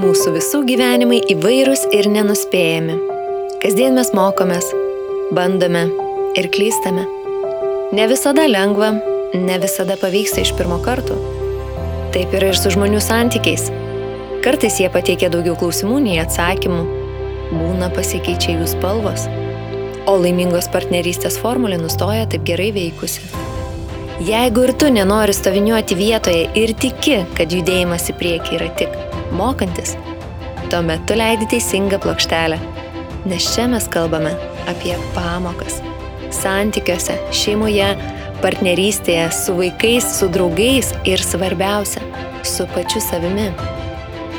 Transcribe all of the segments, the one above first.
Mūsų visų gyvenimai įvairūs ir nenuspėjami. Kasdien mes mokomės, bandome ir klystame. Ne visada lengva, ne visada pavyksta iš pirmo karto. Taip yra ir su žmonių santykiais. Kartais jie pateikia daugiau klausimų nei atsakymų. Būna pasikeičia jų spalvos. O laimingos partnerystės formulė nustoja taip gerai veikusi. Jeigu ir tu nenori stoviniuoti vietoje ir tiki, kad judėjimas į priekį yra tik mokantis, tuomet tu leidi teisingą plokštelę. Nes čia mes kalbame apie pamokas. Santykiuose, šeimoje, partnerystėje, su vaikais, su draugais ir svarbiausia, su pačiu savimi.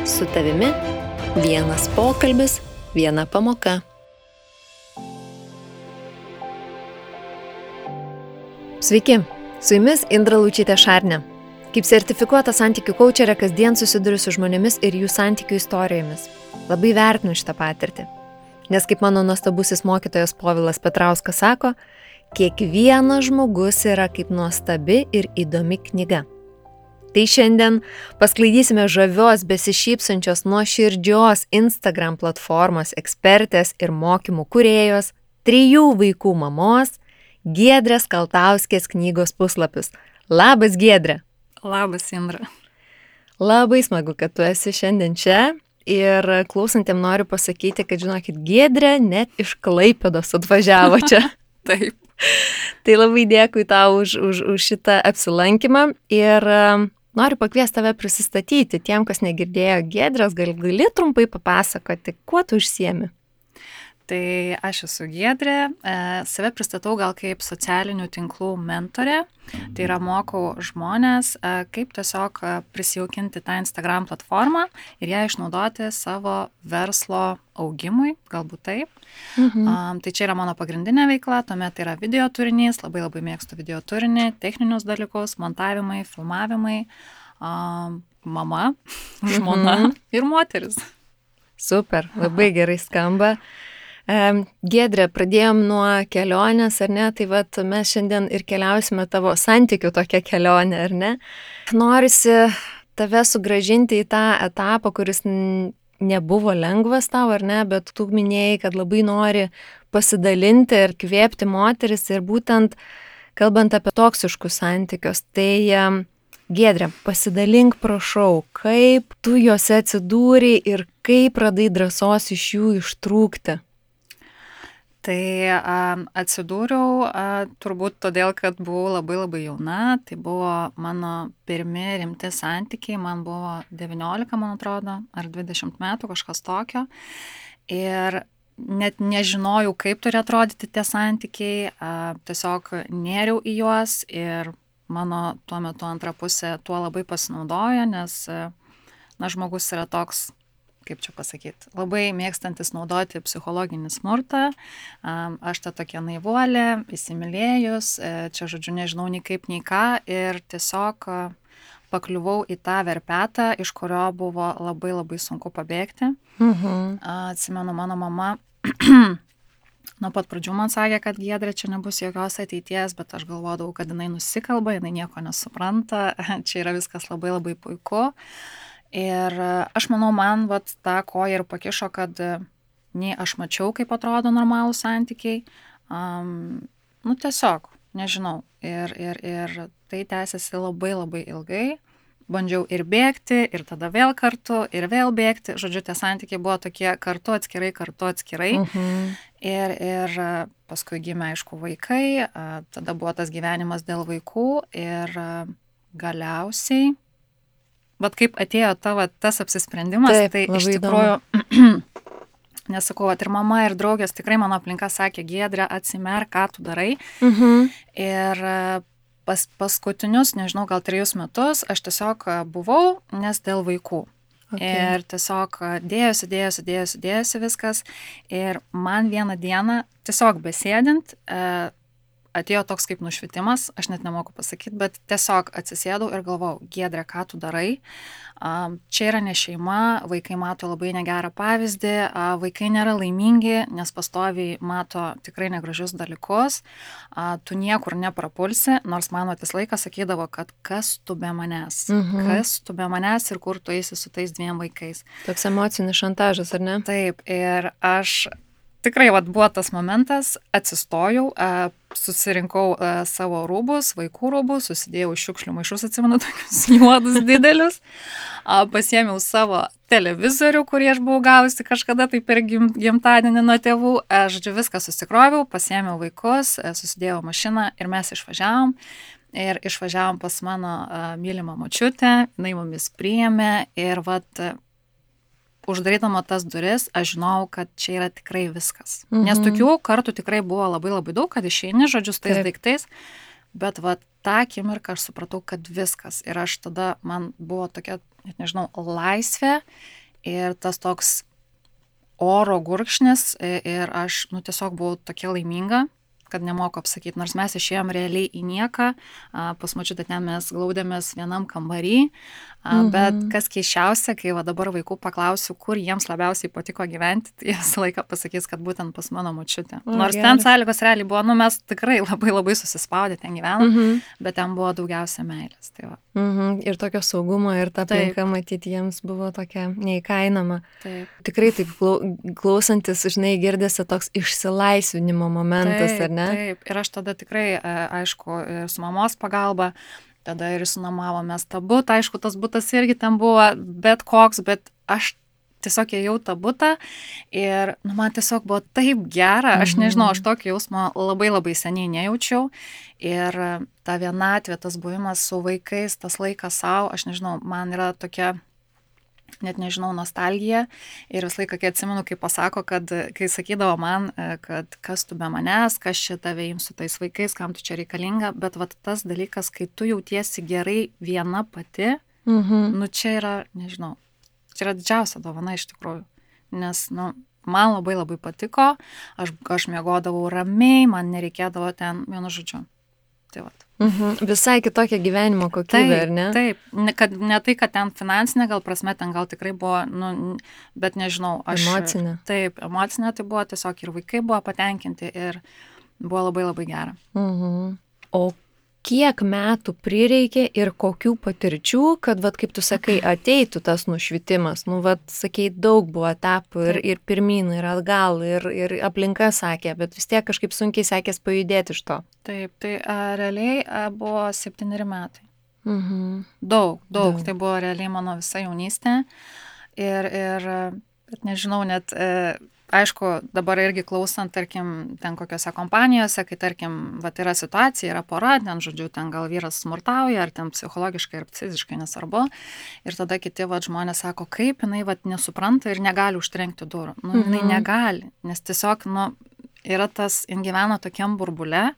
Su tavimi vienas pokalbis, viena pamoka. Sveiki, su jumis Indra Lučytė Šarnė. Kaip sertifikuota santykių kaučerė kasdien susiduriu su žmonėmis ir jų santykių istorijomis. Labai vertinu šitą patirtį. Nes kaip mano nuostabusis mokytojas Povilas Petrauskas sako, kiekvienas žmogus yra kaip nuostabi ir įdomi knyga. Tai šiandien pasklaidysime žavios, besišypsančios, nuoširdžios Instagram platformos ekspertės ir mokymų kūrėjos, 3 vaikų mamos, Giedrės Kaltauskės knygos puslapius. Labas, Giedrė! Labas, Indra. Labai smagu, kad tu esi šiandien čia ir klausantiem noriu pasakyti, kad žinokit, Giedrė net iš Klaipėdos atvažiavo čia. Taip. Tai labai dėkui tau už šitą apsilankymą ir noriu pakviesti tave prisistatyti tiem, kas negirdėjo Giedrės, gali trumpai papasakoti, kuo tu užsiemi? Tai aš esu Giedrė, save pristatau gal kaip socialinių tinklų mentorė, tai yra mokau žmonės, kaip tiesiog prisijaukinti tą Instagram platformą ir ją išnaudoti savo verslo augimui, galbūt taip. Tai čia yra mano pagrindinė veikla, tuomet tai yra video turinys, labai mėgstu video turinį, techninius dalykus, montavimai, filmavimai, mama, žmona ir moteris. Super, labai gerai skamba. Giedrė, pradėjom nuo kelionės, ar ne? Tai vat mes šiandien ir keliausime tavo santykių tokią kelionę, ar ne? Norisi tave sugrąžinti į tą etapą, kuris nebuvo lengvas tau, ar ne? Bet tu minėjai, kad labai nori pasidalinti ir kvėpti moteris ir būtent kalbant apie toksiškus santykius. Tai Giedrė, pasidalink prašau, kaip tu juose atsidūrei ir kaip radai drąsos iš jų ištrūkti? Tai atsidūriau turbūt todėl, kad buvau labai jauna, tai buvo mano pirmi rimti santykiai, man buvo 19, man atrodo, ar 20 metų, kažkas tokio. Ir net nežinojau, kaip turi atrodyti tie santykiai, tiesiog nėriau į juos ir mano tuo metu antra pusė tuo labai pasinaudojo, nes žmogus yra toks, kaip čia pasakyti, labai mėgstantis naudoti psichologinį smurtą. Aš ta tokia naivuolė, įsimylėjus, čia žodžiu nežinau nei kaip, nei ką ir tiesiog pakliuvau į tą verpetą, iš kurio buvo labai sunku pabėgti. Atsimenu, mano mama nuo pat pradžių man sakė, kad Giedrė, čia nebus jokios ateities, bet aš galvodavau, kad jinai nusikalba, jinai nieko nesupranta, čia yra viskas labai puiku. Ir aš manau, man tą koją ir pakišo, kad nei aš mačiau, kaip atrodo normalūs santykiai, tiesiog, nežinau. Ir tai tęsiasi labai ilgai. Bandžiau ir bėgti, ir tada vėl kartu, ir vėl bėgti. Žodžiu, tie santykiai buvo tokie kartu atskirai. Ir paskui gimė, aišku, vaikai, tada buvo tas gyvenimas dėl vaikų ir galiausiai vat kaip atėjo tas apsisprendimas, taip, tai iš tikrųjų, nesakau, ir mama, ir draugės, tikrai mano aplinka sakė, Giedrė, atsimerk, ką tu darai. Ir paskutinius, nežinau, gal 3 metus aš tiesiog buvau, nes dėl vaikų. Ir tiesiog dėjosi viskas. Ir man vieną dieną, tiesiog besėdint, atėjo toks kaip nušvitimas, aš net nemoku pasakyti, bet tiesiog atsisėdau ir galvojau, Giedrė, ką tu darai? Čia yra ne šeima, vaikai mato labai negerą pavyzdį, vaikai nėra laimingi, nes pastoviai mato tikrai negražius dalykus, tu niekur neprapulsi, nors mano tas laikas sakydavo, kad kas tu be manęs, kas tu be manęs ir kur tu eisi su tais 2 vaikais. Toks emocinis šantažas, ar ne? Taip, ir aš tikrai buvo tas momentas, atsistojau, susirinkau savo rūbus, vaikų rūbus, susidėjau šiukšlių maišus, atsimenu, tokius juodus didelius, pasiėmiau savo televizorių, kurį aš buvau gavusi kažkada tai per gimtadienį nuo tėvų, žodžiu, viską susikroviau, pasiėmiau vaikus, susidėjau mašiną ir mes išvažiavom. Ir išvažiavom pas mano mylimą močiutę, jinai mumis priėmė ir uždarydama tas duris, aš žinojau, kad čia yra tikrai viskas. Nes tokių kartų tikrai buvo labai labai daug, kad išeini, žodžiu, su tais daiktais, bet tą akimirką aš supratau, kad viskas. Ir aš tada, man buvo tokia, net nežinau, laisvė ir tas toks oro gurkšnis ir aš, tiesiog buvau tokia laiminga, kad nemoku apsakyti, nors mes išėjom realiai į nieką, pas močiutę ten mes glaudėmės vienam kambarį, bet kas keisčiausia, kai dabar vaikų paklausiu, kur jiems labiausiai patiko gyventi, tai visą laiką pasakys, kad būtent pas mano močiutę. Nors ten sąlygos realiai buvo, mes tikrai labai labai susispaudę ten gyvenom, bet ten buvo daugiausia meilės. Tai va. Ir tokio saugumo ir ta aplinka, matyti, jiems buvo tokia neįkainama. Taip. Tikrai taip klausantis, žinai, girdėsi toks išsilaisvinimo momentas, ar ne? Taip, ir aš tada tikrai, aišku, su mamos pagalba, tada ir sunomavomės tą butą, aišku, tas butas irgi ten buvo bet koks, bet aš tiesiog ėjau tą butą ir man tiesiog buvo taip gera, aš nežinau, aš tokį jausmą labai labai seniai nejaučiau ir ta vienatvė, tas buvimas su vaikais, tas laikas savo, aš nežinau, man yra tokia, net nežinau, nostalgija ir visą laiką, kai atsimenu, kai pasako, kad kai sakydavo man, kad kas tu be manęs, kas čia tave ims su tais vaikais, kam tu čia reikalinga, bet tas dalykas, kai tu jautiesi gerai viena pati, čia yra, nežinau, čia yra didžiausia dovana iš tikrųjų, nes, man labai labai patiko, aš miegodavau ramiai, man nereikėdavo ten, vienu žodžiu. Tai Visai kitokia gyvenimo kokybė, ar ne? Taip, ne tai, kad ten finansinė, gal prasme, ten gal tikrai buvo, bet nežinau. Emocinė. Taip, emocinė tai buvo tiesiog ir vaikai buvo patenkinti ir buvo labai labai gera. O kiek metų prireikė ir kokių patirčių, kad, kaip tu sakai, ateitų tas nušvitimas? Sakei, daug buvo etapų ir pirmyn, ir atgal, ir aplinka sakė, bet vis tiek kažkaip sunkiai sekės pajudėti iš to. Taip, tai realiai buvo 7 metai. Daug. Tai buvo realiai mano visa jaunystė. Ir bet nežinau, net... Aišku, dabar irgi klausant, tarkim, ten kokiose kompanijose, kai, tarkim, yra situacija, yra pora, ten, žodžiu, ten gal vyras smurtauja, ar ten psichologiškai ir fiziškai nesvarbu. Ir tada kiti žmonės sako, kaip jinai nesupranta ir negali užtrenkti durų. Jinai negali, nes tiesiog, yra tas, jin gyvena tokiam burbule,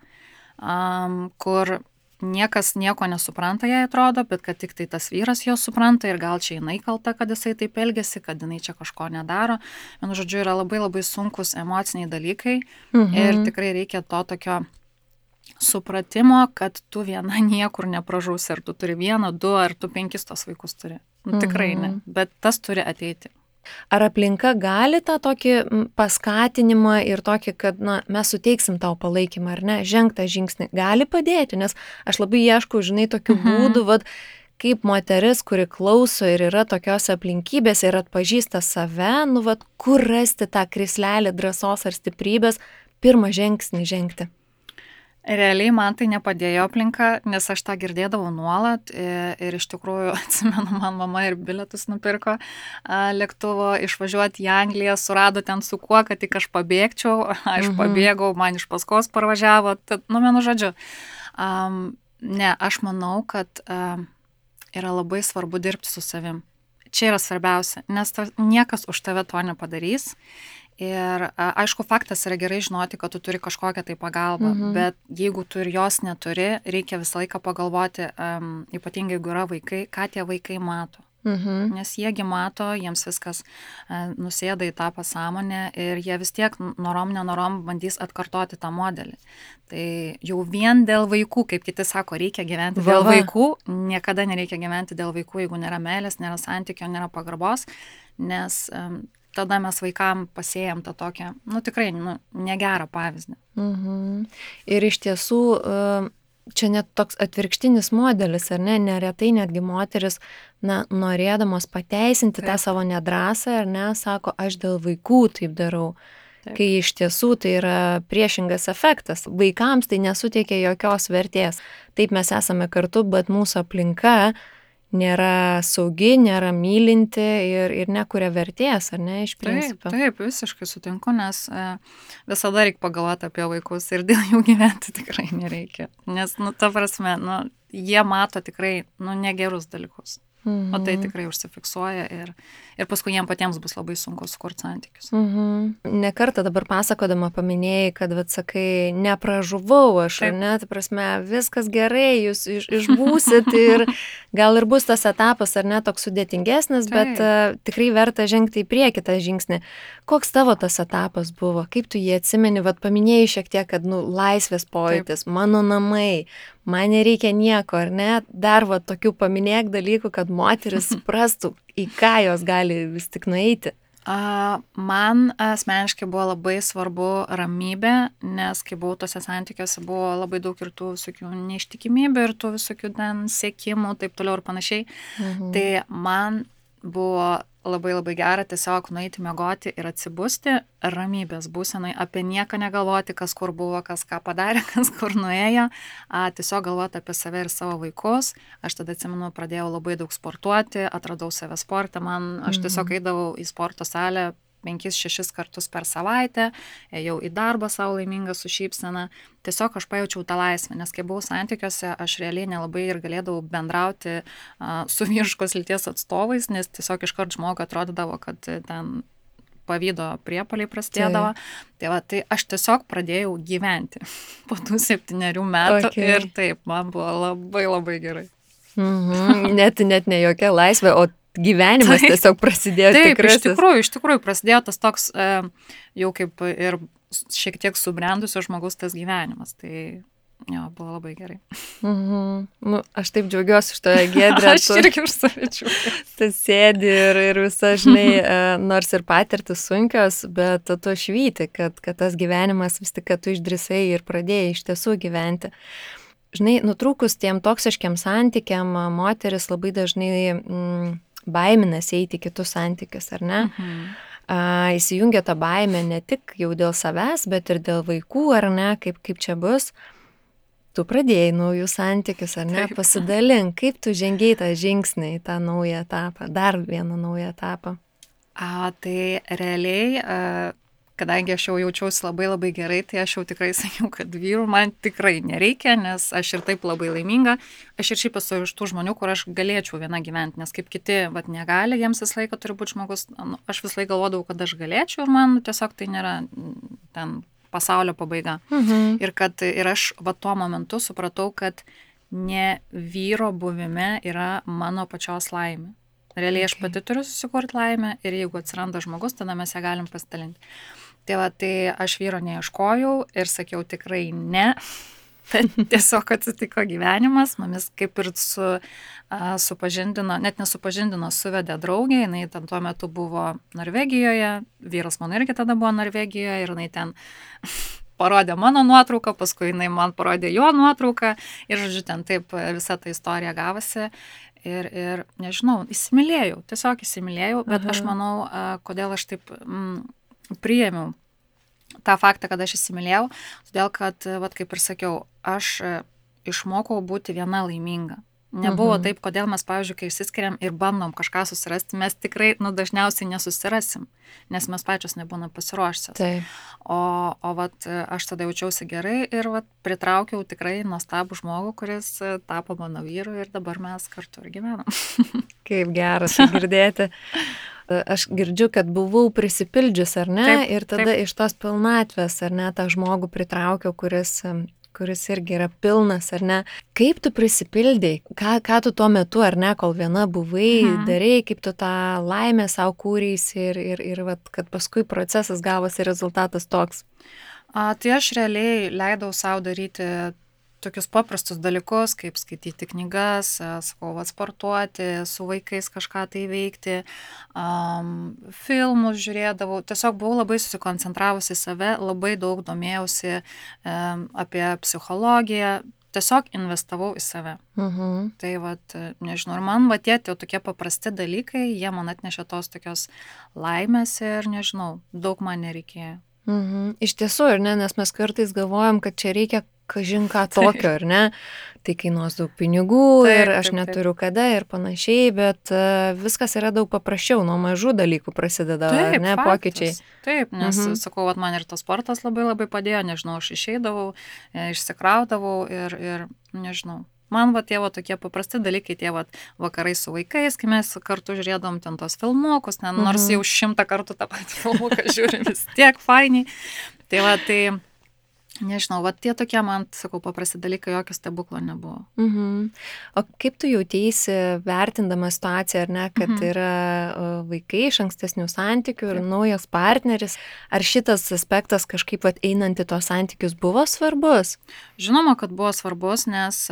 kur niekas nieko nesupranta, jai atrodo, bet kad tik tai tas vyras jo supranta ir gal čia jinai kalta, kad jisai taip elgiasi, kad jinai čia kažko nedaro. Vienu žodžiu, yra labai labai sunkus emociniai dalykai ir tikrai reikia to tokio supratimo, kad tu viena niekur nepražūsi, ar tu turi 1, 2, ar tu 5 tos vaikus turi. Tikrai ne, bet tas turi ateiti. Ar aplinka gali tą tokį paskatinimą ir tokį, kad mes suteiksim tau palaikymą, ar ne, žengtą žingsnį, gali padėti, nes aš labai ieškau, žinai, tokių būdų, kaip moteris, kuri klauso ir yra tokios aplinkybės ir atpažįsta save, kur rasti tą krislelį drąsos ar stiprybės, pirmą žingsnį žengti. Realiai man tai nepadėjo aplinka, nes aš tą girdėdavau nuolat ir iš tikrųjų, atsimenu, man mama ir bilietus nupirko lėktuvo išvažiuoti į Angliją, surado ten su kuo, kad tik aš pabėgčiau, aš pabėgau, man iš paskos parvažiavo, tad, vienu žodžiu. Ne, aš manau, kad yra labai svarbu dirbti su savim. Čia yra svarbiausia, nes niekas už tave to nepadarys. Ir aišku, faktas yra gerai žinoti, kad tu turi kažkokią tai pagalbą, bet jeigu tu ir jos neturi, reikia visą laiką pagalvoti, ypatingai jeigu yra vaikai, ką tie vaikai mato. Nes jiegi mato, jiems viskas nusėda į tą pasąmonę ir jie vis tiek nenorom bandys atkartoti tą modelį. Tai jau vien dėl vaikų, kaip kiti sako, reikia gyventi dėl vaikų, niekada nereikia gyventi dėl vaikų, jeigu nėra meilės, nėra santykio, nėra pagarbos, nes tada mes vaikam pasėjam tą tokią, tikrai, negerą pavyzdį. Ir iš tiesų, čia net toks atvirkštinis modelis, ar ne, neretai netgi moteris, norėdamos pateisinti tą savo nedrąsą, ar ne, sako, aš dėl vaikų taip darau. Taip. Kai iš tiesų tai yra priešingas efektas. Vaikams tai nesuteikia jokios vertės. Taip mes esame kartu, bet mūsų aplinka nėra saugi, nėra mylinti ir nekuria vertės, ar ne, iš principo. Taip, visiškai sutinku, nes visada reikia pagalvoti apie vaikus ir dėl jų gyventi tikrai nereikia. Nes, ta prasme, jie mato tikrai, negerus dalykus. O tai tikrai užsifiksuoja ir paskui jiems patiems bus labai sunku sukurti santykius. Ne kartą dabar pasakodama paminėjai, kad, sakai, nepražuvau aš, ar ne, tai prasme, viskas gerai, jūs išbūsit ir gal ir bus tas etapas, ar ne, toks sudėtingesnis, bet tikrai verta žengti į priekį tą žingsnį. Koks tavo tas etapas buvo? Kaip tu jį atsimeni? Paminėjai šiek tiek, kad, laisvės pojūtis, mano namai, man nereikia nieko, ar ne? Dar tokių paminėk dalykų, kad moteris suprastų, į ką jos gali vis tik nueiti. Man asmeniškai buvo labai svarbu ramybė, nes kai buvau tose santykiuose, buvo labai daug ir tų visokių neištikimybių ir tų visokių ten siekimų, taip toliau ir panašiai. Tai man buvo labai gera tiesiog nueiti miegoti ir atsibusti ramybės būsenai, apie nieką negalvoti, kas kur buvo, kas ką padarė, kas kur nuėjo, tiesiog galvoti apie save ir savo vaikus. Aš tada atsimenu, pradėjau labai daug sportuoti, atradau save sportą, aš tiesiog eidavau į sporto salę 5-6 kartus per savaitę, ėjau į darbą savo laimingą su šypsena, tiesiog aš pajaučiau tą laisvę, nes kai buvau santykiuose, aš realiai nelabai ir galėdavau bendrauti su vyriškos lyties atstovais, nes tiesiog iškart žmogui atrodydavo, kad ten pavydo priepuoliai prasidėdavo. Tai aš tiesiog pradėjau gyventi po tų 7 metų ir taip, man buvo labai gerai. Net ne jokia laisvė, o gyvenimas tiesiog prasidėjo tikrasis. Taip, iš tikrųjų prasidėjo tas toks jau kaip ir šiek tiek subrendusio žmogus tas gyvenimas. Tai jo, buvo labai gerai. Aš taip džiaugiuosi iš toje Giedrė. Aš irgi už save džiaugiuosi. Tu sėdi ir visa, žinai, nors ir patirtis sunkios, bet tu švyti, kad tas gyvenimas vis tik, kad tu išdrįsai ir pradėjai iš tiesų gyventi. Žinai, nutrūkus tiem toksiškiam santykiam, moteris labai dažnai baiminasi eiti į kitus santykius, ar ne? Įsijungia tą baimę ne tik jau dėl savęs, bet ir dėl vaikų, ar ne, kaip čia bus. Tu pradėjai naujus santykius, ar ne? Pasidalink, kaip tu žengiai tą žingsnį į tą naują etapą, dar vieną naują etapą. Tai realiai, kadangi aš jau jaučiausi labai gerai, tai aš jau tikrai sakiau, kad vyrų man tikrai nereikia, nes aš ir taip labai laiminga. Aš ir šiaip esu iš tų žmonių, kur aš galėčiau viena gyventi, nes kaip kiti negali, jiems visą laiką turi būti žmogus. Aš visą laiką galvodavau, kad aš galėčiau ir man tiesiog tai nėra ten pasaulio pabaiga. Ir aš tuo momentu supratau, kad ne vyro buvime yra mano pačios laimė. Realiai aš pati turiu susikurti laimę ir jeigu atsiranda žmogus, tada mes ją galim pasidalinti. Tai aš vyro neieškojau ir sakiau tikrai ne. Tiesiog atsitiko gyvenimas, mumis kaip ir supažindino, net nesupažindino, suvedė draugė, jinai ten tuo metu buvo Norvegijoje, vyras mano irgi tada buvo Norvegijoje ir jinai ten parodė mano nuotrauką, paskui jinai man parodė jo nuotrauką ir, žodžiu, ten taip visa ta istorija gavosi. Ir nežinau, tiesiog įsimylėjau, bet aš manau, kodėl aš taip priėmiau tą faktą, kad aš įsimylėjau, todėl kad, kaip ir sakiau, aš išmokau būti viena laiminga. Nebuvo taip, kodėl mes, pavyzdžiui, kai išsiskiriam ir bandom kažką susirasti, mes tikrai, dažniausiai nesusirasim, nes mes pačios nebūna pasiruošęs. O aš tada jaučiausi gerai ir pritraukiau tikrai nuostabų žmogų, kuris tapo mano vyru ir dabar mes kartu ir gyvenam. Kaip geras girdėti. Aš girdžiu, kad buvau prisipildžius, ar ne? Taip, ir tada iš tos pilnatvės, ar ne, tą žmogų pritraukiau, kuris kuris irgi yra pilnas, ar ne? Kaip tu prisipildai? Ką tu tuo metu, ar ne, kol viena buvai, darai, kaip tu tą laimę savo kūrėsi ir vat, kad paskui procesas gavosi rezultatas toks? Tai aš realiai leidau savo daryti tokius paprastus dalykus, kaip skaityti knygas, sakau, sportuoti, su vaikais kažką tai veikti, filmus žiūrėdavau. Tiesiog buvau labai susikoncentravusi į save, labai daug domėjausi apie psichologiją, tiesiog investavau į save. Tai vat, nežinau, ir man tie tokie paprasti dalykai, jie man atnešė tos tokios laimės ir nežinau, daug man nereikėjo. Iš tiesų, ir ne, nes mes kartais galvojam, kad čia reikia kažin ką tokio, ar ne? Tai kainuos daug pinigų ir aš neturiu kada ir panašiai, bet viskas yra daug paprasčiau, nuo mažų dalykų prasideda, ar ne, pokyčiai. Taip, nes, sakau, man ir tas sportas labai padėjo, nežinau, aš išeidavau, išsikraudavau ir nežinau. Man tie tokie paprasti dalykai, tie vakarai su vaikais, kai mes kartu žiūrėdom ten tos filmukus, nors jau 100 kartų tą patį filmuką žiūrim, vis tiek fainiai. Tai nežinau, tie tokie man, sakau, paprasti dalykai, jokio stebuklo nebuvo. O kaip tu jauteisi vertindama situaciją, ar ne, kad yra vaikai iš ankstesnių santykių ir naujas partneris? Ar šitas aspektas kažkaip einant į tos santykius buvo svarbus? Žinoma, kad buvo svarbus, nes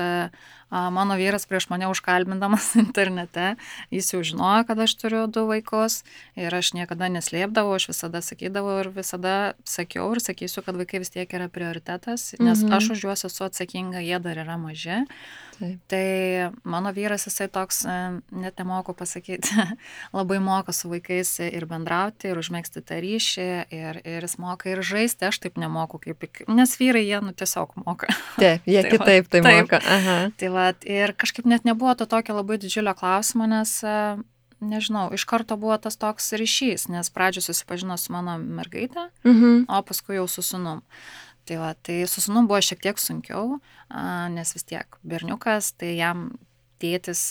mano vyras prieš mane užkalbindamas internete, jis jau žinojo, kad aš turiu 2 vaikus ir aš niekada neslėpdavau, aš visada sakydavau ir visada sakiau ir sakysiu, kad vaikai vis tiek yra prioritetas, nes aš už juos esu atsakinga, jie dar yra maži. Taip. Tai mano vyras, jisai toks, net nemoku pasakyti, labai moka su vaikais ir bendrauti, ir užmėgsti tą ryšį, ir jis moka ir žaisti, aš taip nemoku, nes vyrai jie tiesiog moka. Taip, jie kitaip tai moka. Aha. Tai ir kažkaip net nebuvo to tokio labai didžiulio klausimo, nes, nežinau, iš karto buvo tas toks ryšys, nes pradžioje susipažino su mano mergaitė, o paskui jau su sūnum. Tai su sūnum buvo šiek tiek sunkiau, nes vis tiek berniukas, tai jam tėtis,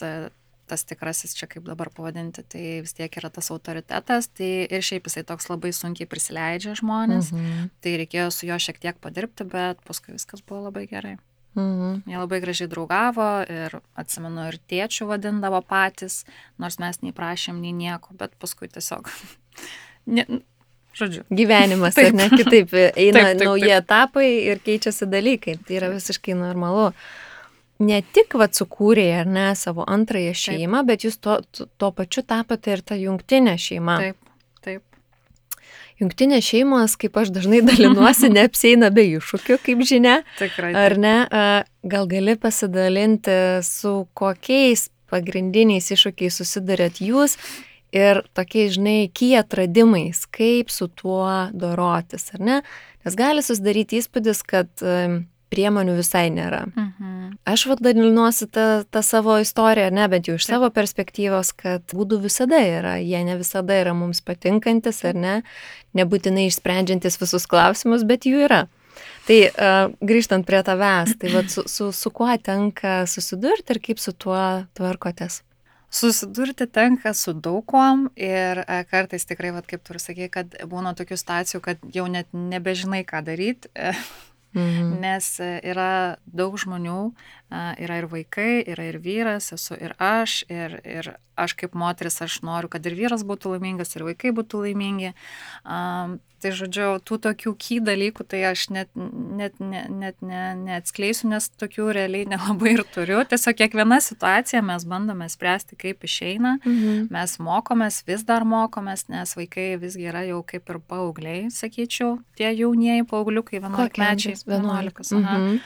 tas tikrasis čia kaip dabar pavadinti, tai vis tiek yra tas autoritetas, tai ir šiaip jisai toks labai sunkiai prisileidžia žmonės, tai reikėjo su juo šiek tiek padirbti, bet paskui viskas buvo labai gerai. Jie labai gražiai draugavo ir atsimenu ir tėčių vadindavo patys, nors mes nei prašėm, nei nieko, bet paskui tiesiog... Žodžiu. Gyvenimas, ar ne, kitaip eina nauji etapai ir keičiasi dalykai. Tai yra visiškai normalu. Ne tik sukūrė, ar ne, savo antrąją šeimą, bet jūs to pačiu tapote ir ta jungtinė šeima. Taip. Jungtinės šeimos, kaip aš dažnai dalinuosi, neapsieina be iššūkių, kaip žinia. Tikrai. Ar ne? Gal gali pasidalinti, su kokiais pagrindiniais iššūkiais susidarėt jūs ir tokiais, žinai, atradimais, kaip su tuo dorotis, ar ne? Nes gali susidaryti įspūdis, kad priemonių visai nėra. Aš dalinuosi tą savo istoriją, ar ne, bet jau iš savo perspektyvos, kad būdų visada yra, jie ne visada yra mums patinkantis, ar ne, nebūtinai išsprendžiantis visus klausimus, bet jų yra. Tai grįžtant prie tavęs, tai su kuo tenka susidurti ir kaip su tuo tvarkotės? Susidurti tenka su daug kuom ir kartais tikrai, kaip tu ir sakei, kad būna tokių situacijų, kad jau net nebežinai, ką daryti, nes yra daug žmonių, yra ir vaikai, yra ir vyras, esu ir aš aš kaip moteris, aš noriu, kad ir vyras būtų laimingas, ir vaikai būtų laimingi. Tai žodžiu, tų tokių dalykų, tai aš net neatskleisiu, nes tokių realiai nelabai ir turiu. Tiesiog kiekviena situacija mes bandome spręsti, kaip išeina. Mes mokomės, vis dar mokomės, nes vaikai visgi yra jau kaip ir paaugliai, sakyčiau, tie jaunieji paaugliukai, 11-mečiai. 11.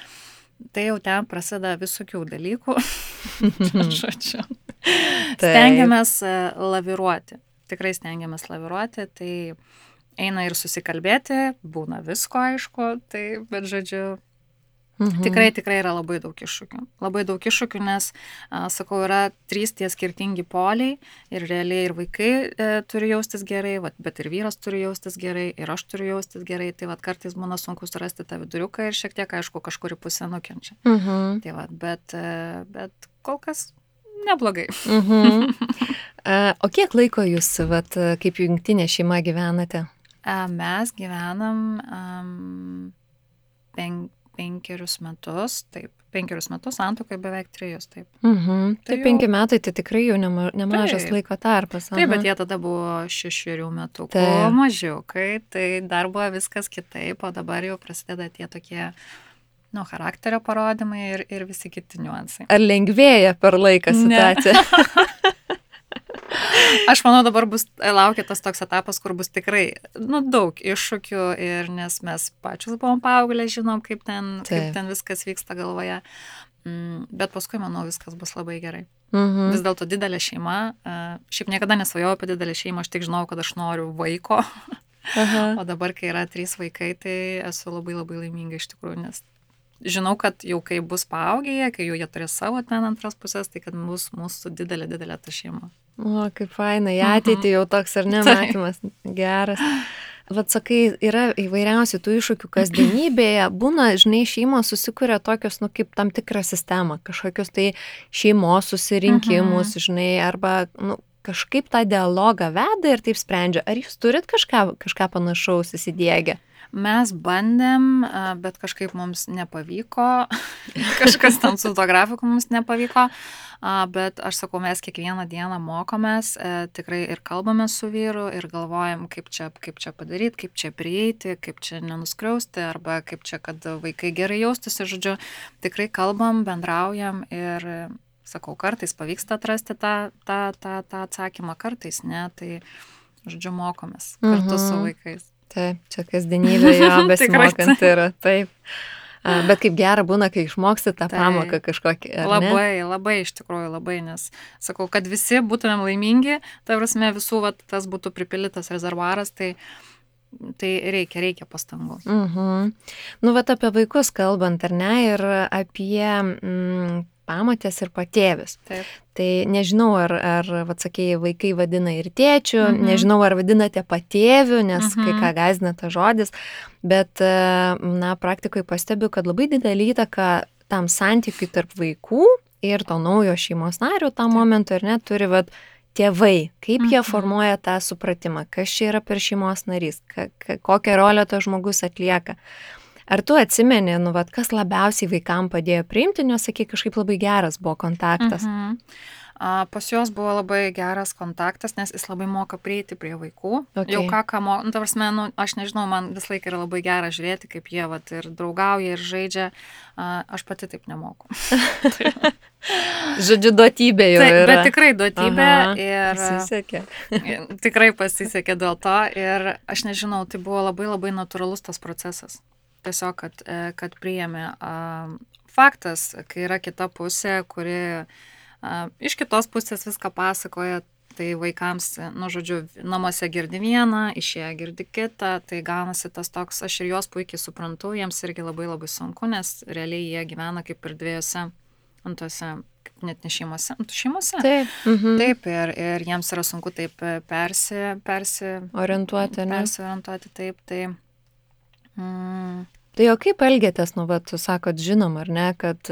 Tai jau ten prasideda visokių dalykų. Žodžiu. Stengiamės laviruoti. Tikrai stengiamės laviruoti. Tai eina ir susikalbėti, būna visko, aišku. Tai, bet žodžiu, tikrai yra labai daug iššūkių. Labai daug iššūkių, nes, sakau, yra 3 tie skirtingi poliai ir realiai ir vaikai turi jaustis gerai, bet ir vyras turi jaustis gerai, ir aš turiu jaustis gerai. Tai kartais būna sunku surasti tą viduriuką ir šiek tiek, aišku, kažkuri pusė nukenčia. Tai bet kol kas neblogai. O kiek laiko jūs, kaip jungtinė šeima gyvenate? Mes gyvenam 5 metus, taip, 5 metus, santuokai beveik 3, taip. Tai 5 metai, tai tikrai jau nemažas laiko tarpas. Taip, bet jie tada buvo 6 metukų mažiukai, tai dar buvo viskas kitaip, o dabar jau prasideda tie tokie, charakterio parodymai ir visi kiti niuansai. Ar lengvėja per laiką situacija? Aš manau, dabar laukia tas toks etapas, kur bus tikrai, daug iššūkių ir nes mes pačius buvom paauglę, žinom, kaip ten viskas vyksta galvoje. Bet paskui, manau, viskas bus labai gerai. Vis dėlto didelė šeima. Šiaip niekada nesvajojau apie didelę šeimą, aš tik žinau, kad aš noriu vaiko. O dabar, kai yra 3 vaikai, tai esu labai labai laiminga iš tikrųjų, nes žinau, kad jau kai bus paaugę, kai jau jie turės savo ten antras pusės, tai kad bus mūsų didelė ta šeima. O, kaip fainai, ateitį jau toks ar nematymas. Geras. Vat sakai, yra įvairiausių tų iššūkių kasdienybėje, būna, žinai, šeimos susikuria tokios, kaip tam tikrą sistemą, kažkokius tai šeimos susirinkimus, žinai, arba, kažkaip tą dialogą veda ir taip sprendžia. Ar jūs turit kažką panašaus įsidiegę? Mes bandėm, bet kažkaip mums nepavyko, kažkas tam su to grafiku mums nepavyko, bet aš sakau, mes kiekvieną dieną mokomės, tikrai ir kalbame su vyru ir galvojam, kaip čia padaryti, kaip čia prieiti, kaip čia nenuskriausti, arba kaip čia, kad vaikai gerai jaustųsi, žodžiu, tikrai kalbam, bendraujam ir, sakau, kartais pavyksta atrasti tą atsakymą, kartais ne, tai, žodžiu, mokomės kartu su vaikais. Taip, čia kasdienybė jo besimokant yra, taip. Bet kaip gera būna, kai išmoksti tą pamoką kažkokį, ar ne? Labai, iš tikrųjų, labai, nes sakau, kad visi būtumėm laimingi, tai prasme visų, tas būtų pripildytas rezervuaras, tai reikia pastangų. Apie vaikus kalbant, ar ne, ir apie pamotės ir patėvis. Taip. Tai nežinau, ar sakėjai, vaikai vadina ir tėčių, nežinau, ar vadinate patėvių, nes kai ką gąsdina tas žodis, bet, praktikoje pastebiu, kad labai didelį įtaką tam santykiui tarp vaikų ir to naujo šeimos nario tam momentui, ar ne, turi, tėvai, kaip jie formuoja tą supratimą, kas čia yra per šeimos narys, kokią rolę tas žmogus atlieka. Ar tu atsimeni, kas labiausiai vaikam padėjo priimti, nes, sakai, kažkaip labai geras buvo kontaktas? Pas juos buvo labai geras kontaktas, nes jis labai moka prieiti prie vaikų. Okay. Jau ką moka, aš nežinau, man vis laik yra labai gera žiūrėti, kaip jie ir draugauja, ir žaidžia. Aš pati taip nemoku. Žodžiu, duotybė jau yra. Bet tikrai duotybė. Ir pasisekė. Tikrai pasisekė dėl to. Ir aš nežinau, tai buvo labai labai natūralus tas procesas. Tiesiog, kad priėmė. Faktas, kai yra kita pusė, kuri iš kitos pusės viską pasakoja, tai vaikams, žodžiu, namuose girdi vieną, išėję girdi kitą, tai gaunasi tas toks, aš ir juos puikiai suprantu, jiems irgi labai labai sunku, nes realiai jie gyvena kaip ir dviejose, antose, net ne šeimose, šeimose. Taip. Taip, ir jiems yra sunku taip orientuoti, ne? Persiorientuoti, taip, tai... Tai jau kaip elgėtės, tu sakot, žinom, ar ne, kad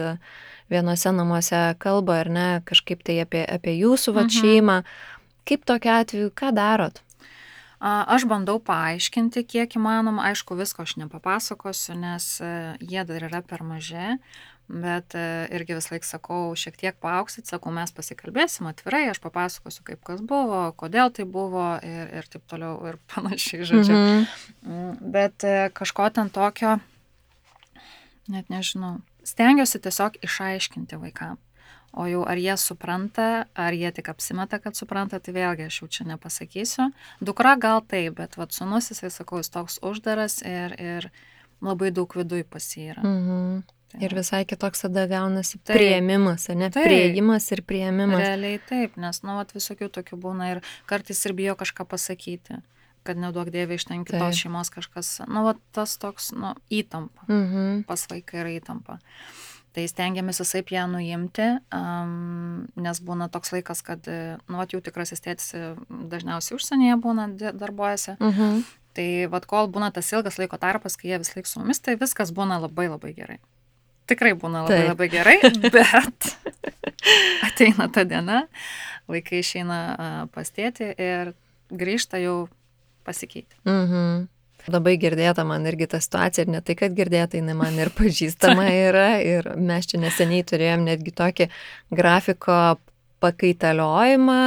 vienose namuose kalba, ar ne, kažkaip tai apie jūsų šeimą. Kaip tokia atveju, ką darot? Aš bandau paaiškinti, kiek įmanoma, aišku, visko aš nepapasakosiu, nes jie dar yra per maži, bet irgi vis laik sakau, šiek tiek paauksit, sakau, mes pasikalbėsim atvirai, aš papasakosiu, kaip kas buvo, kodėl tai buvo ir taip toliau ir panašiai, žodžiu. Bet kažko ten tokio, net nežinau, stengiuosi tiesiog išaiškinti vaikam. O jau ar jie supranta, ar jie tik apsimeta, kad supranta, tai vėlgi aš jau čia nepasakysiu. Dukra gal taip, bet sūnus, jisai, sakau, jis toks uždaras ir labai daug viduj pas jį yra. Ir visai kitoks tada gaunasi priėmimas, ne? Priėjimas ir priėmimas. Realiai taip, nes, visokių tokių būna ir kartais ir bijo kažką pasakyti, kad neduok dievė iš ten kitos šeimos kažkas, tas toks, įtampa, pas vaiką yra įtampa. Tai stengiamės visaip ją nuimti, nes būna toks laikas, kad, jų tikrasis tėtis dažniausiai užsienyje būna, darbuojasi. Tai, kol būna tas ilgas laiko tarpas, kai jie vis laik su mumis, tai viskas būna labai labai gerai. Tikrai būna labai labai gerai, bet ateina ta diena, vaikai išeina pas tėtį ir grįžta jau pasikeitę. Labai girdėta man irgi ta situacija ir ne tai, kad girdėta, jinai man ir pažįstama yra ir mes čia neseniai turėjom netgi tokį grafiko pakaitaliojimą.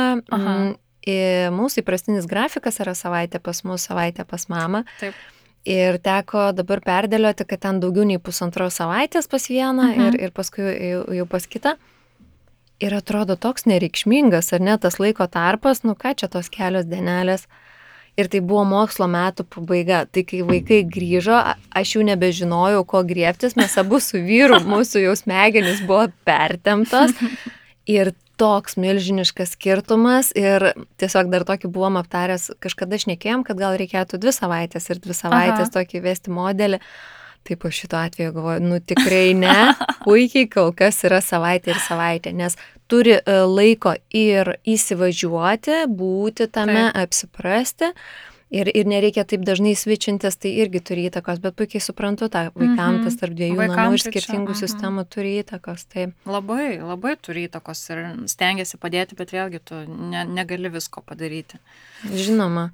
Mūsų įprastinis grafikas yra savaitė pas mus, savaitė pas mamą. Taip. Ir teko dabar perdėlioti, kad ten daugiau nei 1,5 savaitės pas vieną ir paskui jau pas kitą. Ir atrodo toks nereikšmingas, ar ne, tas laiko tarpas, nu ką čia tos kelios dienelės. Ir tai buvo mokslo metų pabaiga. Tai kai vaikai grįžo, aš jau nebežinojau, ko griebtis, mes abu su vyru, mūsų jau smegenys buvo pertemptos. Ir toks milžiniškas skirtumas ir tiesiog dar tokį buvom aptaręs, kažkada šnekėjom, kad gal reikėtų 2 savaitės ir 2 savaitės tokį vesti modelį. Taip po šito atveju galvoju, nu tikrai ne, puikiai kol kas yra savaitė ir savaitė, nes turi laiko ir įsivažiuoti, būti tame, apsiprasti. Ir nereikia taip dažnai svičintis, tai irgi turi įtakos, bet puikiai suprantu tą vaikams, tas tarp dviejų namų ir skirtingų sistemų turi įtakos. Taip. Labai, labai turi įtakos ir stengiasi padėti, bet vėlgi tu negali visko padaryti. Žinoma.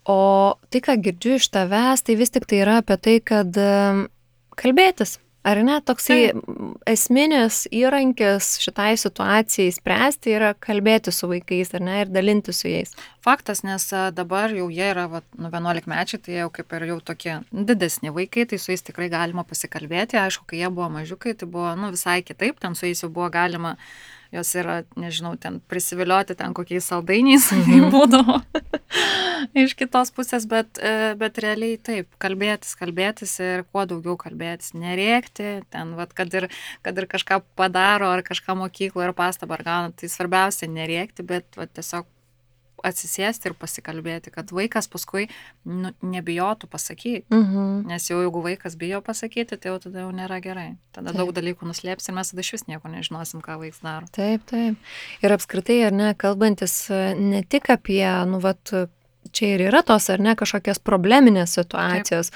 O tai, ką girdžiu iš tavęs, tai vis tik tai yra apie tai, kad kalbėtis. Ar ne, toksai esminis įrankis šitai situacijai spręsti yra kalbėti su vaikais, ar ne, ir dalinti su jais. Faktas, nes dabar jau jie yra 11 mečiai, tai jau kaip ir jau tokie didesni vaikai, tai su jais tikrai galima pasikalbėti. Aišku, kai jie buvo mažiukai, tai buvo visai kitaip, ten su jais jau buvo galima, jos yra, nežinau, ten prisivilioti ten kokiais saldainiais, būdavo iš kitos pusės, bet realiai taip, kalbėtis ir kuo daugiau kalbėtis, nerėkti, ten, kad ir kažką padaro, ar kažką mokykloje, ar pastabą, ar gauna, tai svarbiausia nerėkti, bet tiesiog atsisėsti ir pasikalbėti, kad vaikas paskui nebijotų pasakyti, nes jau jeigu vaikas bijo pasakyti, tai jau tada jau nėra gerai. Tada daug dalykų nuslėps ir mes tada iš vis nieko nežinosim, ką vaikas daro. Taip. Ir apskritai, ar ne, kalbantis ne tik apie, čia ir yra tos, ar ne, kažkokios probleminės situacijos,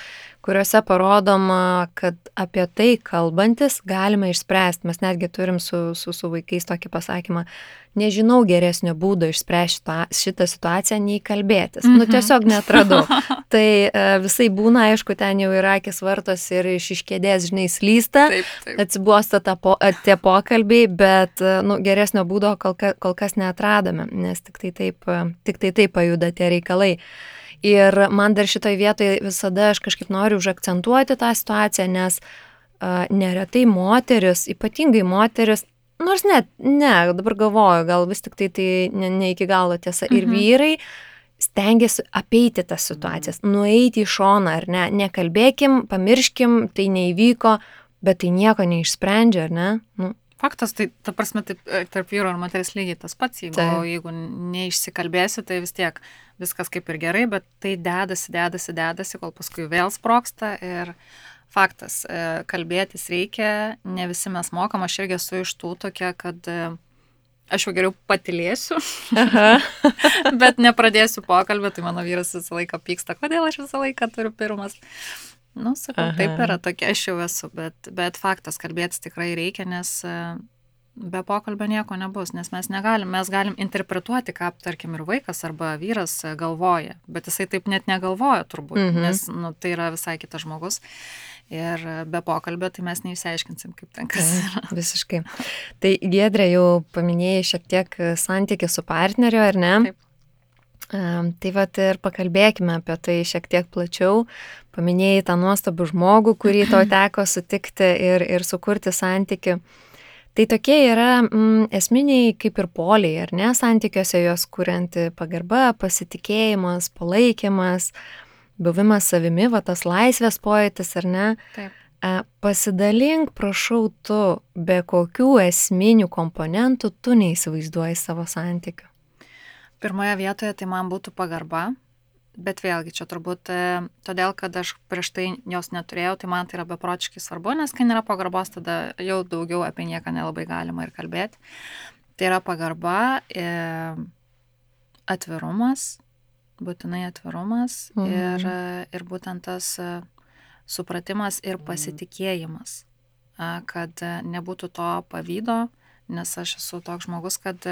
kuriuose parodoma, kad apie tai kalbantis galima išspręsti. Mes netgi turim su vaikais tokį pasakymą, nežinau geresnio būdo išspręsti šitą situaciją, nei kalbėtis. Tiesiog netradau. Tai visai būna, aišku, ten jau yra akis vartos ir iš kėdės, žinai, slysta, atsibosta tie pokalbiai, bet geresnio būdo kol kas neatradome, nes tik tai taip pajuda tie reikalai. Ir man dar šitoj vietoje visada aš kažkaip noriu užakcentuoti tą situaciją, nes neretai moteris, ypatingai moteris, nors ne, dabar galvoju, gal vis tik tai ne iki galo tiesa, ir vyrai stengiasi apeiti tas situacijas, nueiti į šoną, ar ne, nekalbėkim, pamirškim, tai neįvyko, bet tai nieko neišsprendžia, ar ne? Faktas, tai ta prasme, tarp vyro ir moteris lygiai tas pats, jeigu neišsikalbėsi, tai vis tiek viskas kaip ir gerai, bet tai dedasi, kol paskui vėl sprogsta ir faktas, kalbėtis reikia, ne visi mes mokam, aš irgi esu iš tų tokia, kad aš jau geriau patylėsiu, bet nepradėsiu pokalbį, tai mano vyras visą laiką pyksta, kodėl aš visą laiką turiu pirmas. Sakau, taip yra, tokia aš jau esu, bet faktas, kalbėtis tikrai reikia, nes be pokalbio nieko nebus, nes mes galim interpretuoti, ką, tarkim, ir vaikas arba vyras galvoja, bet jisai taip net negalvoja turbūt, nes tai yra visai kitas žmogus ir be pokalbio tai mes neišsiaiškinsim, kaip ten kas yra. Visiškai. Tai Giedrė jau paminėjai šiek tiek santykį su partneriu, ar ne? Taip. Tai ir pakalbėkime apie tai šiek tiek plačiau. Paminėjai tą nuostabų žmogų, kurį tau teko sutikti ir sukurti santykių. Tai tokie yra esminiai kaip ir poliai, ar ne, santykiuose jos kurianti pagarba, pasitikėjimas, palaikymas, buvimas savimi, tas laisvės pojūtis, ar ne? Taip. Pasidalink, prašau, tu, be kokių esminių komponentų tu neįsivaizduoji savo santykių. Pirmoje vietoje tai man būtų pagarba, bet vėlgi čia turbūt todėl, kad aš prieš tai jos neturėjau, tai man tai yra beprotiškai svarbu, nes kai nėra pagarbos, tada jau daugiau apie nieką nelabai galima ir kalbėti. Tai yra pagarba, atvirumas, būtinai atvirumas ir būtent tas supratimas ir pasitikėjimas, kad nebūtų to pavydo, nes aš esu toks žmogus, kad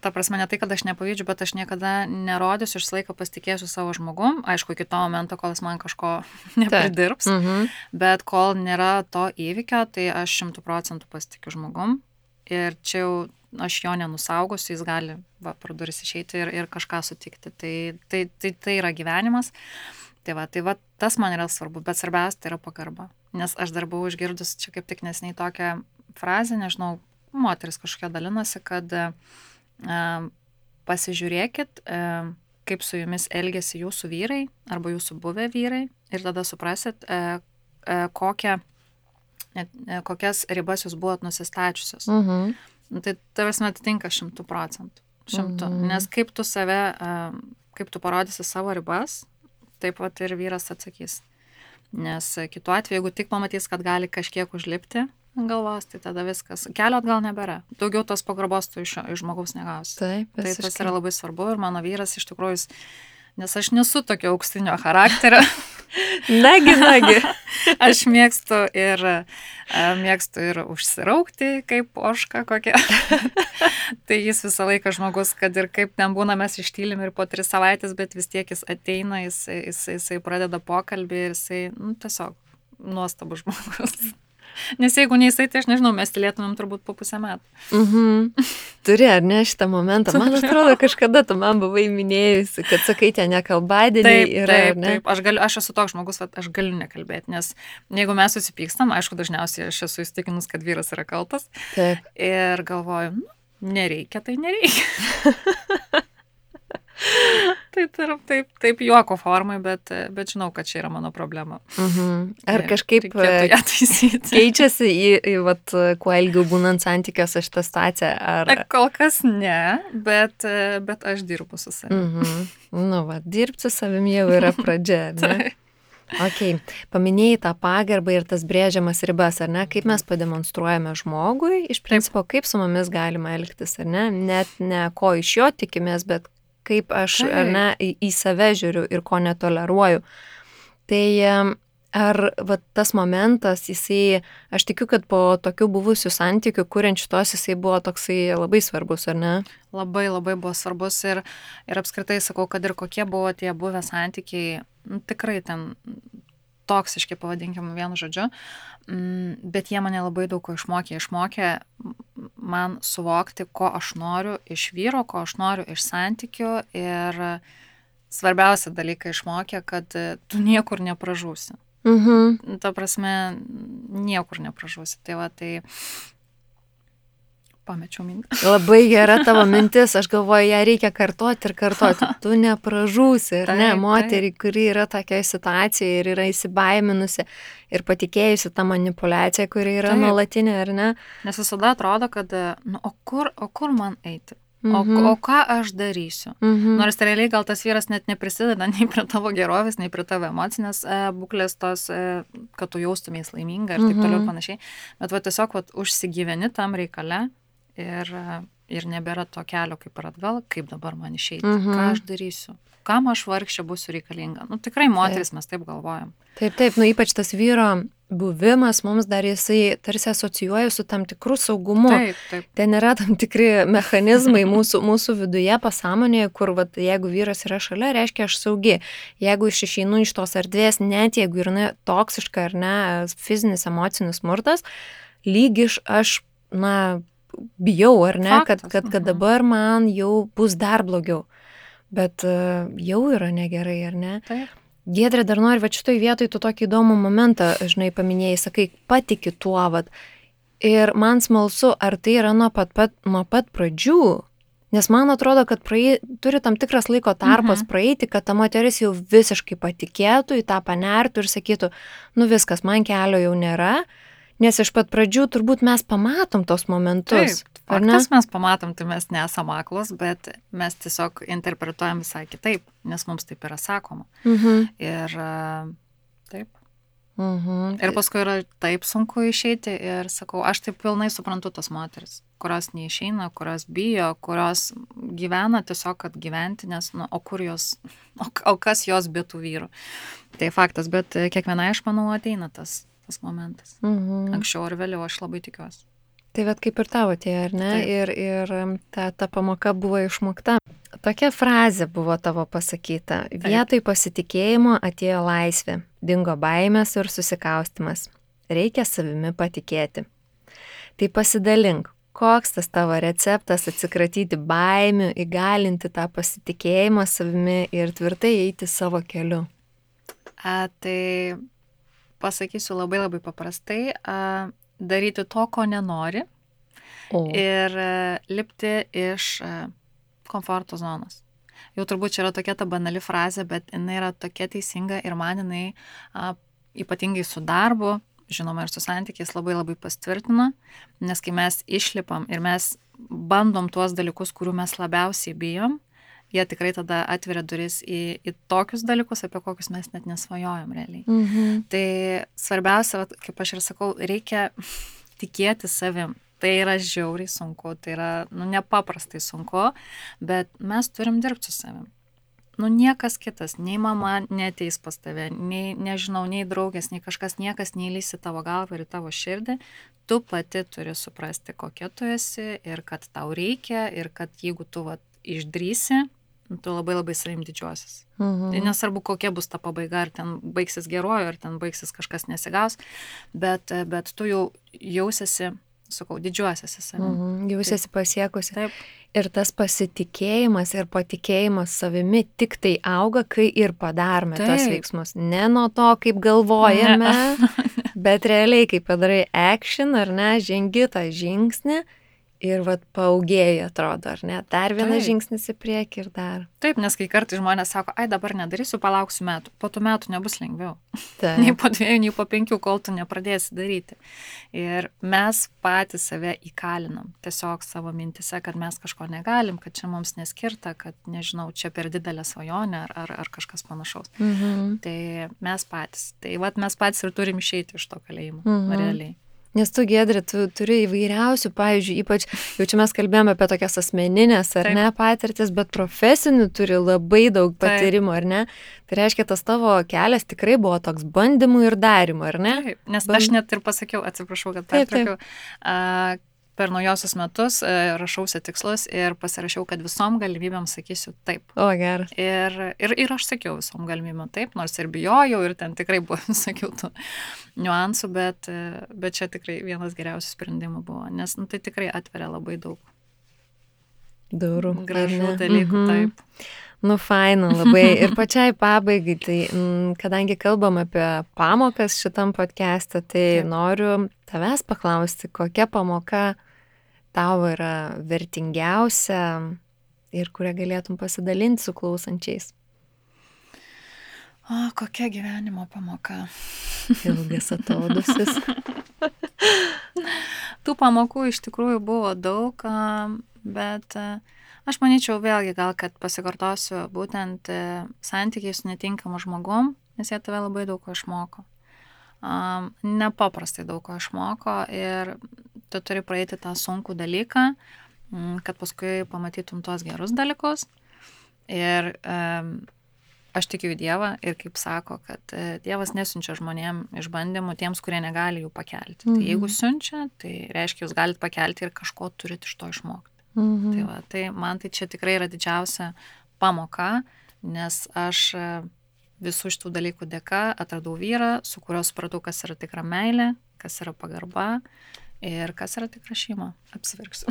ta prasme, ne tai, kad aš nepavydžiu, bet aš niekada nerodysiu, aš laiką pasitikėsiu savo žmogum, aišku, iki to momento, kol jis man kažko nepridirbs, bet kol nėra to įvykio, tai aš 100% pasitikiu žmogum ir čia jau aš jo nenusaugosiu, jis gali pro duris išeiti ir kažką sutikti. Tai yra gyvenimas. Tai va, tas man yra svarbu, bet svarbiausia tai yra pagarba. Nes aš dar buvau išgirdus čia kaip tik neseniai tokią frazę, nežinau, moteris kažkokia dalinosi, kad pasižiūrėkit, kaip su jumis elgėsi jūsų vyrai arba jūsų buvę vyrai ir tada suprasit, kokias ribas jūs buvot nusistačiusios. Tai tavasme atitinka 100%. Nes kaip tu save, kaip tu parodysi savo ribas, taip pat ir vyras atsakys. Nes kitu atveju, jeigu tik pamatys, kad gali kažkiek užlipti galvos, tai tada viskas. Kelio atgal nebėra. Daugiau tos pagarbos tu iš žmogaus negausi. Taip, tai tas yra labai svarbu ir mano vyras iš tikrųjų, nes aš nesu tokio auksinio charakterio. Nagi. Aš mėgstu ir užsiraukti, kaip ožka kokia. Tai jis visą laiką žmogus, kad ir kaip ten būna, mes ištylim ir po 3 savaitės, bet vis tiek jis ateina, jisai pradeda pokalbį ir jisai, tiesiog nuostabus žmogus. Nes jeigu ne jisai, tai aš nežinau, mes tylėtumėm turbūt po 5 metų. Turi, ar ne, šitą momentą? Man atrodo, kažkada tu man buvai minėjusi, kad sakai, ten nekalbadieniai yra, ar ne? Taip, aš esu toks žmogus, aš galiu nekalbėti, nes jeigu mes susipykstam, aišku, dažniausiai aš esu įstikinus, kad vyras yra kaltas. Taip. Ir galvoju, nereikia, tai nereikia. Taip juoko formai, bet žinau, kad čia yra mano problema. Ar kažkaip keičiasi į kuo ilgiau būnant santykiuose šitą situaciją? Kol kas ne, bet aš dirbu su savimi. Dirbti su savimi jau yra pradžia, ne? Ok, paminėjai tą pagarbą ir tas brėžiamas ribas, ar ne? Kaip mes pademonstruojame žmogui, iš principo, kaip su mumis galima elgtis, ar ne? Net ne ko iš jo tikimės, bet kaip aš į save žiūriu ir ko netoleruoju. Tai ar tas momentas, aš tikiu, kad po tokių buvusių santykių, kuriant šitos, jisai buvo toksai labai svarbus, ar ne? Labai, labai buvo svarbus ir apskritai sakau, kad ir kokie buvo tie buvę santykiai, tikrai ten toksiški, pavadinkim vienu žodžiu, bet jie mane labai daug ko išmokė man suvokti, ko aš noriu iš vyro, ko aš noriu iš santykių ir svarbiausia dalyką išmokė, kad tu niekur nepražūsi. Ta prasme, niekur nepražūsi. Tai pamečiau mintį. Labai gera tavo mintis, aš galvoju, ją reikia kartoti. Tu nepražūsi, ar ne? Moterį, kuri yra tokioje situacijoje ir yra įsibaiminusi ir patikėjusi tą manipulaciją, kuri yra nuolatinė, ar ne? Nes visada atrodo, kad, o kur man eiti? O ką aš darysiu? Nors realiai gal tas vyras net neprisideda nei prie tavo gerovės, nei prie tavo emocinės būklės tos, kad tu jaustumės laiminga ir taip toliau ir panašiai. Bet tiesiog užsigyveni tam reikale ir nebėra to kelio kaip ir atgal, kaip dabar man išeiti, ką aš darysiu, kam aš vargšė būsiu reikalinga. Tikrai moteris mes taip galvojam. Taip, ypač tas vyro buvimas mums dar jisai tarsi asocijuoja su tam tikrų saugumu. Taip. Ten yra tam tikri mechanizmai mūsų viduje, pasąmonėje, kur jeigu vyras yra šalia, reiškia aš saugi. Jeigu aš išeinu iš tos erdvės, net jeigu yra toksiška ar ne, fizinis, emocinis smurtas, lyg aš, bijau, ar ne, kad dabar man jau bus dar blogiau. Bet jau yra negerai, ar ne? Taip. Giedrė, dar nori, šitoj vietoj tu tokį įdomų momentą, žinai, paminėjai, sakai, patiki tuo, ir man smalsu, ar tai yra nuo pat pradžių, nes man atrodo, kad turi tam tikras laiko tarpas praeiti, kad ta moteris jau visiškai patikėtų, į tą panertų ir sakytų, viskas, man kelio jau nėra, nes iš pat pradžių turbūt mes pamatom tos momentus. Taip, faktas mes pamatom, tai mes nesam aklos, bet mes tiesiog interpretuojam visai kitaip, nes mums taip yra sakoma. Ir taip. Ir paskui yra taip sunku išeiti ir sakau, aš taip pilnai suprantu tas moteris, kurios neišeina, kurios bijo, kurios gyvena tiesiog, kad gyventi, nes, o kur jos, o kas jos be tų vyrų. Tai faktas, bet kiekvienai, aš manau, ateina tas momentas. Anksčiau ar vėliau, aš labai tikiuosi. Tai vat kaip ir tavo atėjo, ar ne? Taip. Ir ta pamoka buvo išmokta. Tokia frazė buvo tavo pasakyta. Vietoj pasitikėjimo atėjo laisvė, dingo baimės ir susikaustimas. Reikia savimi patikėti. Tai pasidalink, koks tas tavo receptas atsikratyti baimių, įgalinti tą pasitikėjimą savimi ir tvirtai eiti savo keliu? Tai pasakysiu labai labai paprastai. Daryti to, ko nenori ir lipti iš komforto zonos. Jau turbūt čia yra tokia ta banali frazė, bet jinai yra tokia teisinga ir man jinai ypatingai su darbu, žinoma ir su santykiais labai labai pastvirtino, nes kai mes išlipam ir mes bandom tuos dalykus, kurių mes labiausiai bijom, jie tikrai tada atveria duris į tokius dalykus, apie kokius mes net nesvajojam realiai. Tai svarbiausia, kaip aš ir sakau, reikia tikėti savim. Tai yra žiauriai sunku, tai yra nepaprastai sunku, bet mes turim dirbti su savim. Niekas kitas, nei mama neateis pas tave, nei, nežinau, nei draugės, nei kažkas, niekas neįlys į tavo galvą ir į tavo širdį. Tu pati turi suprasti, kokia tu esi ir kad tau reikia ir kad jeigu tu išdrįsi, tu labai labai savim didžiuosis. Tai nesvarbu, kokia bus ta pabaiga, ar ten baigsis geruoju, ar ten baigsis kažkas nesigaus, bet tu jau jausiasi, sakau, didžiuosiasi savim. Jausiasi pasiekusi. Taip. Ir tas pasitikėjimas ir patikėjimas savimi tik tai auga, kai ir padarome tos veiksmus. Ne nuo to, kaip galvojame, bet realiai, kai padarai action, ar ne, žengi tą žingsnį, ir paaugėjai atrodo, ar ne? Dar vienas žingsnis į priekį ir dar. Taip, nes kai kartais žmonės sako, dabar nedarysiu, palauksiu metų. Po tų metų nebus lengviau. Nei po 2, nei po 5, kol tu nepradėsi daryti. Ir mes patys save įkalinam. Tiesiog savo mintise, kad mes kažko negalim, kad čia mums neskirta, kad, nežinau, čia per didelė svajonė ar kažkas panašaus. Tai mes patys. Tai mes patys ir turim išeiti iš to kalėjimo. Realiai. Nes tu, Giedrė, tu turi įvairiausių, pavyzdžiui, ypač, jau čia mes kalbėjome apie tokias asmeninės, ar ne, patirtis, bet profesinių turi labai daug patyrimų, ar ne? Tai reiškia, tas tavo kelias tikrai buvo toks bandymų ir darimų, ar ne? Taip, nes aš net ir pasakiau, atsiprašau, kad pertraukiau, per naujosius metus rašausi tikslus ir pasirašiau, kad visom galimybėm sakysiu taip. O, geras. Ir aš sakiau visom galimybėm taip, nors ir bijojau, ir ten tikrai buvo, sakiau, tų niuansų, bet čia tikrai vienas geriausių sprendimų buvo, nes tai tikrai atveria labai daug durų. Gražių dalykų, taip. Faina labai. Ir pačiai pabaigai, tai kadangi kalbam apie pamokas šitam podcast'e, tai noriu tavęs paklausti, kokia pamoka tau yra vertingiausia ir kurią galėtum pasidalinti su klausančiais? Kokia gyvenimo pamoka? Ilgas atodusis. Tų pamokų iš tikrųjų buvo daug, bet aš manyčiau vėlgi gal, kad pasikartosiu būtent santykiai su netinkamu žmogum, nes jie tave labai daug ko išmoko. Nepaprastai daug ko išmoko ir tu turi praeiti tą sunkų dalyką, kad paskui pamatytum tuos gerus dalykus. Ir aš tikiu į Dievą ir kaip sako, kad Dievas nesiunčia žmonėm išbandymų tiems, kurie negali jų pakelti. Tai jeigu siunčia, tai reiškia, jūs galite pakelti ir kažko turit iš to išmokti. Tai man tai čia tikrai yra didžiausia pamoka, nes aš visų šitų dalykų dėka atradau vyrą, su kuriuo supratau, kas yra tikra meilė, kas yra pagarba ir kas yra tikra šeima. Apsiverksiu.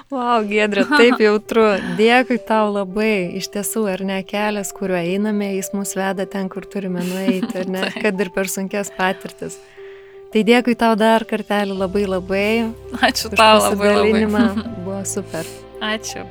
Wow, Giedrė, taip jautru. Dėkui tau labai. Iš tiesų, ar ne, kelias, kuriuo einame, jis mus veda ten, kur turime nueiti, ar ne, kad ir per sunkes patirtis. Tai dėkui tau dar kartelį labai labai. Ačiū tau labai labai. Buvo super. Ačiū.